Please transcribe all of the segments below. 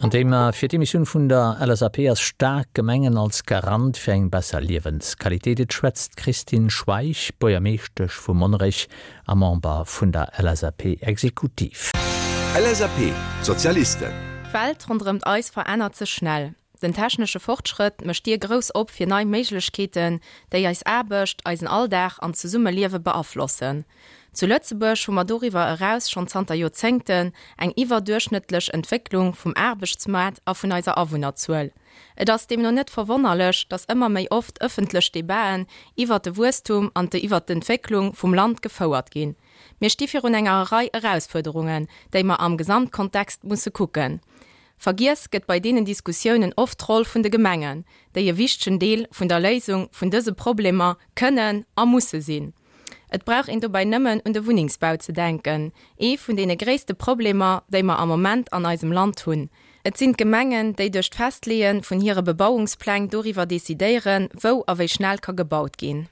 An Thema fir d'Emissioun vun der LSAP ass Staark Gemengen als Garant fir eng besser Liewensqualitéit. Et schwätzt d'Christine Schweich, Buergermeeschtesch vu Monnerech a Member vun der LSAP-Exekutiv. LSAP, Sozialisten. D'Welt ronderëmt eis verännert sech schnell. Den technesche Fortschrëtt mécht d'Dier grouss op fir nei Méiglechkeeten, déi eis Aarbecht, eisen Alldag an d'Zesummeliewe beaflossen. Zu Lëtzebuerg hu mer doriwwer eraus schonn zanter Joerzéngten eng iwwerduerchschnëttlech Entwécklung vum Aarbechtsmaart a vun eiser Awunnerzuel. Et ass deemno net verwonnerlech, datt ëmmer méi oft ëffentlech Debaten iwwert de Wuesstum an de iwwert d'Entwécklung vum Land gefouert ginn. Mir sti virun enger Rei Erausfuerderungen, déi mer am Gesamtkontext musse kucken. Vergiess gëtt bei deenen Diskussiounen oft d'Roll vun de Gemengen, déi e wichtegen Deel vun der Léisung vun dëse Problemer kënnen a musse sinn. Et brauch een dobäi nëmmen un de Wunnengsbau ze denken, ee vun deene gréisste Problemer, déi mer am Moment an eisem Land hunn. Et sinn d'Gemengen, déi duerch d'Festleeë vun hire Bebauungspläng doriwwer decidéieren, wou a wéi schnell ka gebaut ginn.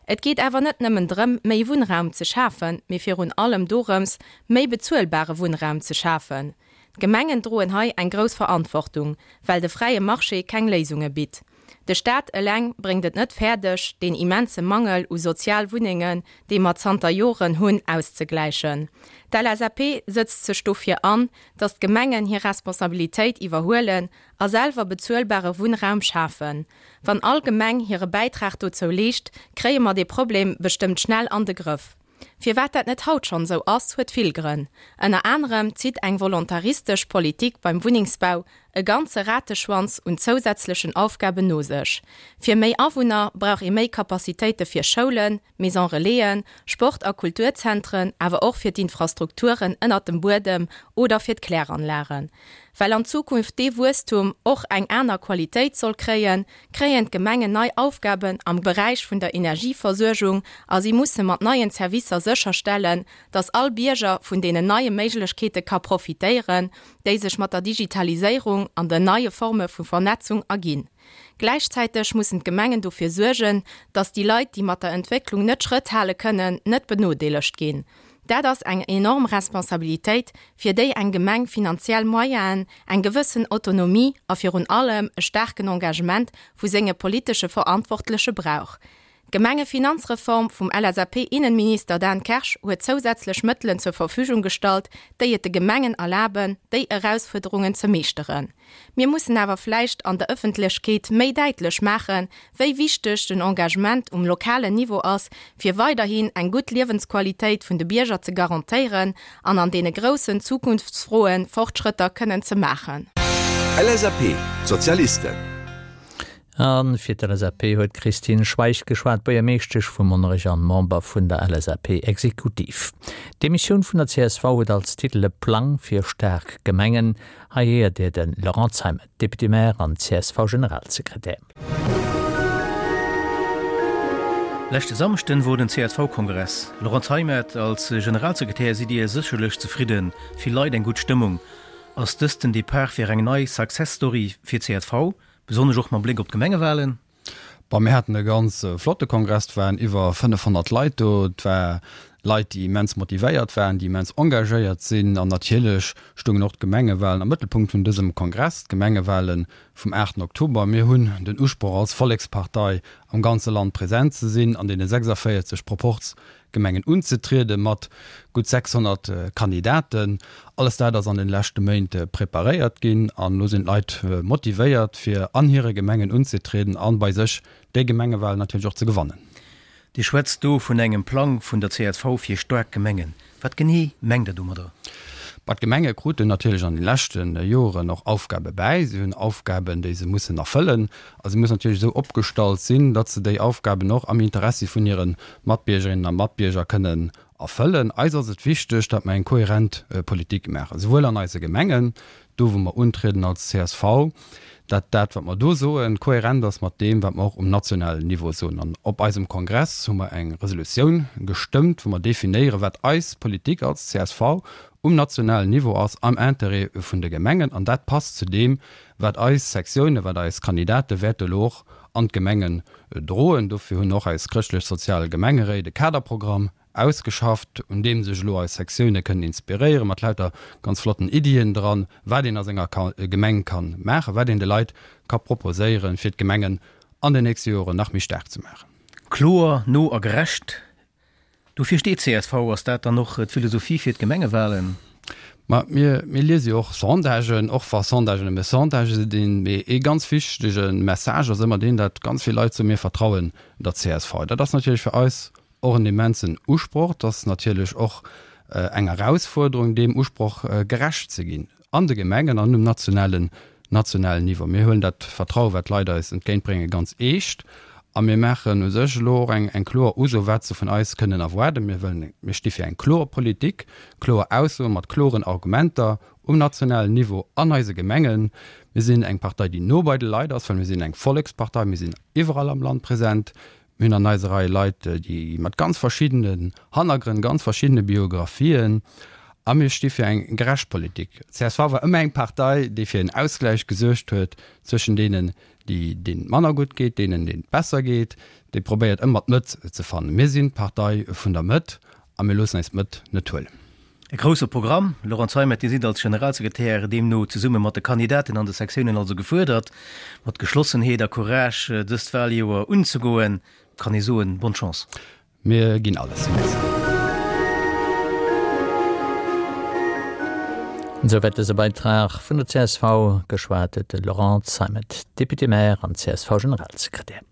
Et geet awer net nëmmen drëm, méi Wunnraum ze schafen, mee virun allem dorëms, méi bezuelbare Wunnraum ze schafen. D'Gemengen droen hei eng grouss Verantwortung, well de fräie Marché keng Léisunge bitt. De Staat eleng bréngt et net fäerdeg, deen immense Mangel u sozial Wunnengen, dee mer zanter Joren hunn, auszegläichen. D'LSAP sëtzt sech dofir an, datt d'Gemengen hir Responsabilitéit iwwerhuelen a selwer bezuelbare Wunnraum schafen. Wann all Gemeng hire Bäitrag dozou leescht, kréie mer dee Problem bestëmmt schnell an de Grëff. Firwat dat net haut schonn esou ass, huet vill Grënn. Ënner anerem zitt eng volontaristesch Politik beim Wunnengsbau e ganze Rateschwanz un zousätzlechen Aufgaben no sech. Fir méi Awunner brauch ee méi Capacitéite fir Schoulen, Maison Relaisen, Sport a Kulturzentren, awer och fir d'Infrastrukturen ënnert dem Buedem oder fir d'Kläranlagen. Well an Zukunft dee Wuesstum och eng aner Qualitéit soll kréien, kréien d'Gemengen nei Aufgaben am Beräich vun der Energieversuergung a si musse mat neien Servicer sécherstellen, dass all Bierger vun deenen neie Méiglechkeete ka profitéieren, déi sech mat der Digitaliséierung an den neie Forme vu Vernetzung erginn. Gläichzäiteg mussen d'Gemengen dofir suergen, dass déi Leit, déi mat der Entwécklung net Schrëtt hale kënnen, net benodeelegt ginn. Dat ass eng enorm Responsabilitéit, fir déi eng Gemeng finanziell Moyenen, eng gewëssen Autonomie a virun allem e staarken Engagement vu senge politesche Verantwortleche brauch. D'Gemengefinanzreform vum LSAP-Innenminister Dan Kersch huet zousätzlech Mëttelen zur Verfügung gestallt, déi et de Gemengen erlaben, déi Erausfuerderungen ze meeschteren. Mir mussen awer vläicht an der Ëffentlechkeet méi däitlech maachen, wéi wichteg den Engagement um lokalen Niveau ass, fir weiderhin eng gutt Liewensqualitéit vun de Bierger ze garantéieren an an deene groussen Zukunftsfroe Fortschrëtter kënnen ze maachen. LSAP, D'Sozialisten. A fir d'LSAP huet d'Christine Schweich geschwat, Buergermeeschtesch vu Monnerech an Member vun der LSAP-Exekutiv. D'Emissioun vun der csv huet als Titel E Plang fir staark Gemengen. Hei héiert Dir de Laurent Zeimet, Député-maire an CSV-Generalsekretär. Leschte Samschden wor den CSV-Kongress. Laurent Zeimet, als Generalsekretär sidd Dir sécherlech zefridden, vill Leit, eng gutt Stëmmung. Ass dëst den Depart fir eng nei Success Story fir csv, besonnesch och mam Bléck op d'Gemengewahlen? Bon, mir haten e ganz flotte Kongress, et waren iwwer 500 Leit do. Et war Leit, déi immens motivéiert waren, déi immens engagéiert sinn. An natierlech stungen och d'Gemengewahlen am Mëttelpunkt vun dësem Kongress, d'Gemengewahlen vum 8 Oktober. Mir hunn den Usproch als Vollekspartei am ganze Land present ze sinn, an deene 46 Proporz Gemengen unzetriede mat gutt 600 Kandidaten. Alles dat ass an den leschte Méint preparéiert ginn an elo sinn d'Leit motivéiert fir an hire Gemengen unzetrieden an bei sech déi Gemengewahlen natierlech och ze gewannen. Dir schwätzt do vun engem Plang vun der csv fir staark Gemengen. Wat genee mengt Der domadder? Bah, d'Gemenge kruten natierlech an de leschte Joren och Aufgabe bäi. Si hunn Aufgaben, déi se mussen erfëllen. A si mussen natierlech esou opgestallt sinn, datt se déi Aufgaben och am Interessi vun hire Matbiergerinnen a Matbierger kënnen erfëllen. Eis ass et wichteg, datt mer eng kohärent Politik maachen, souwuel an eise Gemengen, do wou mer untrieden als csv, datt dat, wat mer do soen, kohärent ass mat deem, wat mer och um nationalen Niveau soen. An op eisem Kongress hu mer eng Resolutioun gestëmmt, wou mer definéieren, wat eis Politik als csv um nationalen Niveau ass am Interêt vun de Gemengen. An dat passt zu deem, wat eis Sektiounen, wat eis Kandidate wäerte elo och an d'Gemengen droen. Dofir hunn och eis chrëschtlech-sozial Gemengeréit e Kaderprogramm. ausgeschafft, un deem sech elo eis Sektioune kënnen inspiréieren, mat lauter ganz flotten Iddien dran, wat een a senger Gemeng ka maachen, wat een de Leit ka proposéieren, fir d'Gemengen an den nächste Joren nach méi staark ze maachen. Kloer, no a gerecht, dofir steet csv. Ass dat dann och d'Philosophie fir d'Gemengewalen? Ma mir, mir liese jo och Sondagen, och wa Sondagen nëmme Sondagë sinn. Mee ee ganz wichtege Message ass ëmmer deen, datt ganz vill Leit soen, mir vertrauen der csv. Dat ass natierlech fir eis Och en immensen Usproch. Et ass natierlech och eng Erausfuerderung, deem Usproch gerecht ze ginn an de Gemengen an um nationalen, nationalen Niveau. Mir huelen dat Vertraue wat d'Leit eis entgéintbréngen, ganz eescht a mir maachen u sech elo och eng, eng kloer Uso, wat se vun eis kënnen erwaarden. Mir wëllen, mir sti fir eng kloer Politik, kloer Aussoe mat kloren Argumenter um nationalen Niveau an eise Gemengen. Mir sinn eng Partei, déi no bei de Leit ass, well mir sinn eng Vollekspartei. Mir sinn iwwerall am Land present. Mir hunn an eiser Rei Leit, déi mat ganz verschiddenen Hannergrënn, ganz verschiddene Biographien, a mir sti fir eng gerecht Politik. Csv war ëmmer eng Partei, déi fir en Ausgläich gesuergt huet zwëschen deenen, déi, deenen et manner gutt geet, deenen, deenen et besser geet, déi probéiert ëmmer d'Mëtt ze fannen. Mir sinn d'Partei vun der Mëtt a mir loossen eis d'Mëtt net huelen. E grousse Programm. Laurent Zeimet, Dir sidd als Generalsekretär deemno zesumme mat de Kandidaten an de Sektiounen also gefuerdert, mat Geschlossenheet a Courage dëst Waljoer unzegoen. Kann ee soen, Bonne Chance. Mir ginn alles. Merci. Esouwäit dëse Beitrag vun der csv. Geschwat huet de Laurent Zeimet, Député-maire an CSV-Generalsekretär.